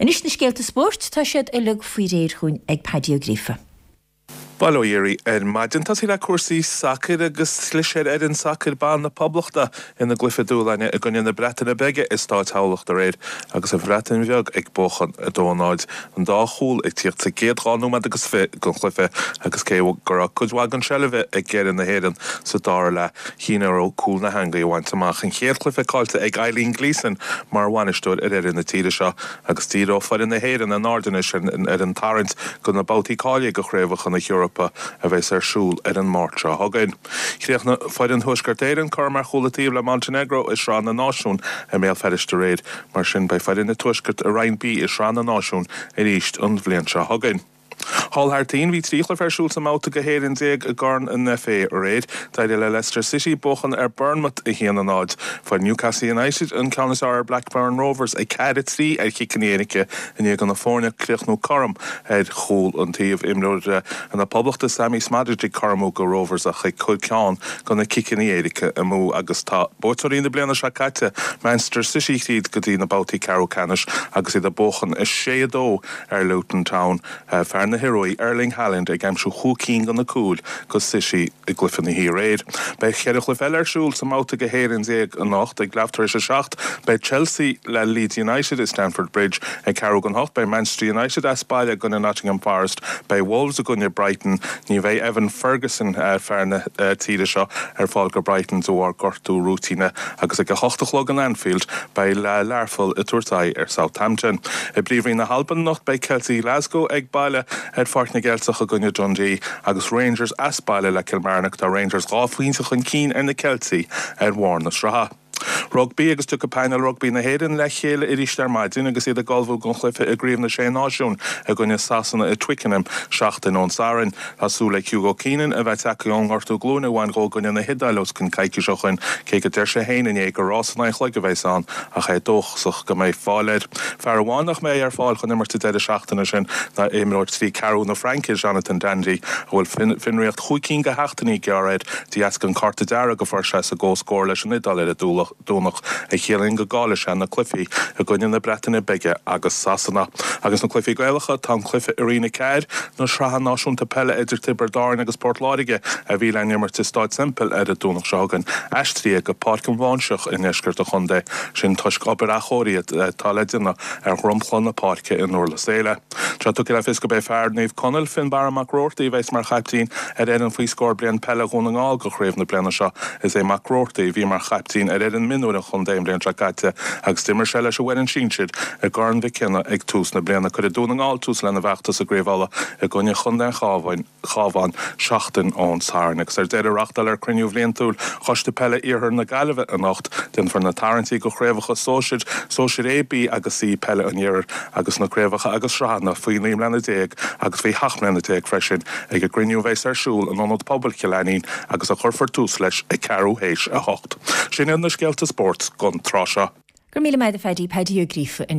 Anois na scéalta spóirt, tá siad uilig faoi réir chugainn ag Paddy Ó Gríofa. Bail ó Dhia oraibh ar maidin. Tosaí le cúrsaí sacair agus chlis ar fhoireann sacair ban na Poblachta ina gcluiche dúshláin i gcoinne na Breataine Bige i Stáid Thamhlacht aréir agus an Bhreatain Bheag ag buachan 2-0. An dá chúl ag tíocht sa gcéad 2 nóiméad agus 20 den chluiche agus cé go raibh cuid mhaith den seilbh ag foireann na hÉireann sa dara leath, chinn orthu cúl na heangaí a bhaint amach. An chéad chluiche caillte ag Eileen Gleeson mar bhainisteoir ar fhoireann na tíre seo. Agus díreoidh foireann na hÉireann a n-aird anois ar an tarraingt do na babhtaí cáilithe do Chraobhacha na hEorpa a bheas ar siúl ar an Máirt seo chugainn. Chríochnaigh foireann Thuaisceart Éireann cothrom ar chúl an taobh le Montenegro i Sraith na Náisiún i mBéal Feirste aréir. Mar sin beidh foireann an Tuaiscirt i Roinn B i Sraith na Náisiún arís an bhliain seo chugainn. Thall thar toinn, bhí 3 chluiche ar siúl sa mbabhta go 11 i gCorn an FA aréir. D'éirigh le Leicester City buachan ar Bournemouth 1-0. Fuair Newcastle United an ceann is fearr ar Blackburn Rovers 4-3 ar chiceanna éirice i ndiaidh do na foirne críochnú cothrom ar chúl an taobh. Imreoir na Poblachta Sammy Szmodics ag cothromú go Rovers ach ag cur ceann de na ciceanna éirice amú agus tá buaiteoirí na bliana seo caite Manchester City thríd go dtí na babhtaí ceathrú ceannais agus iad ag buachan 6-2 ar Luton Town, fear na hIoruaí, Erling Haaland ag aimsiú chúig cinn de na cúil go City i gcluiche na hoíche aréir. Beidh cheithre chluiche eile ar siúl sa mbabhta go 11 anocht. Ag leath tar éis a 7 beidh Chelsea le Leeds United i Stamford Bridge. Ag ceathrú don hocht beidh Manchester United as baile i gcoinne Nottingham Forest. Beidh Wolves i gcoinne Brighton. Ní bheidh Evan Ferguson, fear na tíre seo, ar fáil go Brighton de bharr gortú rúitíne agus ag a hocht a chlog in Anfield beidh Learpholl ag tabhairt aghaidh ar Southampton. I bPríomhroinn na hAlban anocht beidh Ceiltigh Ghlasgow ag baile ar Pháirc na gCeilteach i gcoinne Dundee agus Rangers as baile le Kilmarnock. Tá Rangers 2 phointe chun cinn ar na Ceiltigh ar bharr na sraithe. Rugbaí agus tiocfaidh painéal rugbaí na hÉireann le chéile arís ar maidin agus iad ag ullmhú don chluiche i gCraobh na Sé Náisiún i gcoinne Sasana i Twickenham seachtain ón Satharn. Tá súil le Hugo Keenan a bheith tagtha ón ngortú glúine a bhain dhó i gcoinne na hIodáile os cionn coicís ó shoin, cé go deir sé féin inné gur rás in aghaidh an chloig a bheas ann ach é dóchasach go mbeidh fáil air. Fear amháin nach mbeidh ar fáil chun imirt an deireadh seachtaine sin ná imreoir 3 ceathrú na Fraince, Jonathan Danty, a bhfuil fionraíocht chúig cinn de sheachtainí gearrtha air de dheasca an cárta dearg a fuair sé sa gcomhscór leis an Iodáil ar an Domhnach, a chiallaíonn go gcaillfidh sé na cluichí i gcoinne na Breataine Bige agus Sasana. Agus na cluichí Gaelacha, tá an cluiche i Roinn 4 na Sraithe Náisiúnta Peile idir Tiobraid Árann agus Port Láirge a bhí le n-imirt i Stáid Semple ar an Domhnach seo chugainn, aistrithe go Páirc an Bháinseach i ndeisceart an chontae, sin toisc obair athchóirithe atá le déanamh ar dhromchla na páirce i nDurlas Éile. Tá tugtha le fios gurb é fear Naomh Conaill, Fionnbarra Mac Roarty, a bheas mar chaiptín ar fhoireann faoi scór bliain peile Dhún na nGall do chraobh na bliana seo. Is é Mac Roarty a bhí mar chaiptín ar fhoireann mionúir an chontae an bhliain seo caite agus d'imir sé leis an bhfoireann sinsir i gCorn Mhic Cionnaith ag tús na bliana. Cuirfidh Dún na nGall tús lena bhfeachtas i gCraobh Uladh i gcoinne chontae an Chabháin. Chabhán seachtain ón Satharn. Agus ar deireadh, reáchtáilfear cruinniú bhliantúil Choiste Peile Iarthar na Gaillimhe anocht. Déanfar na tarraingtí do chraobhacha sóisir, sóisir A, B agus C Peile an Iarthair agus na craobhacha agus sraitheanna faoi 19 mbliana agus faoi 17 mbliana freisin ag an gcruinniú a bheas ar siúl in Ionad Pobail Chill Ainnín agus a chuirfear tús leis ag ceathrú théis a hocht. Sin iad na scéalta spóirt don tráth seo. Go raibh míle maith agat a Phaddy, Paddy Ó Gríofa ansin.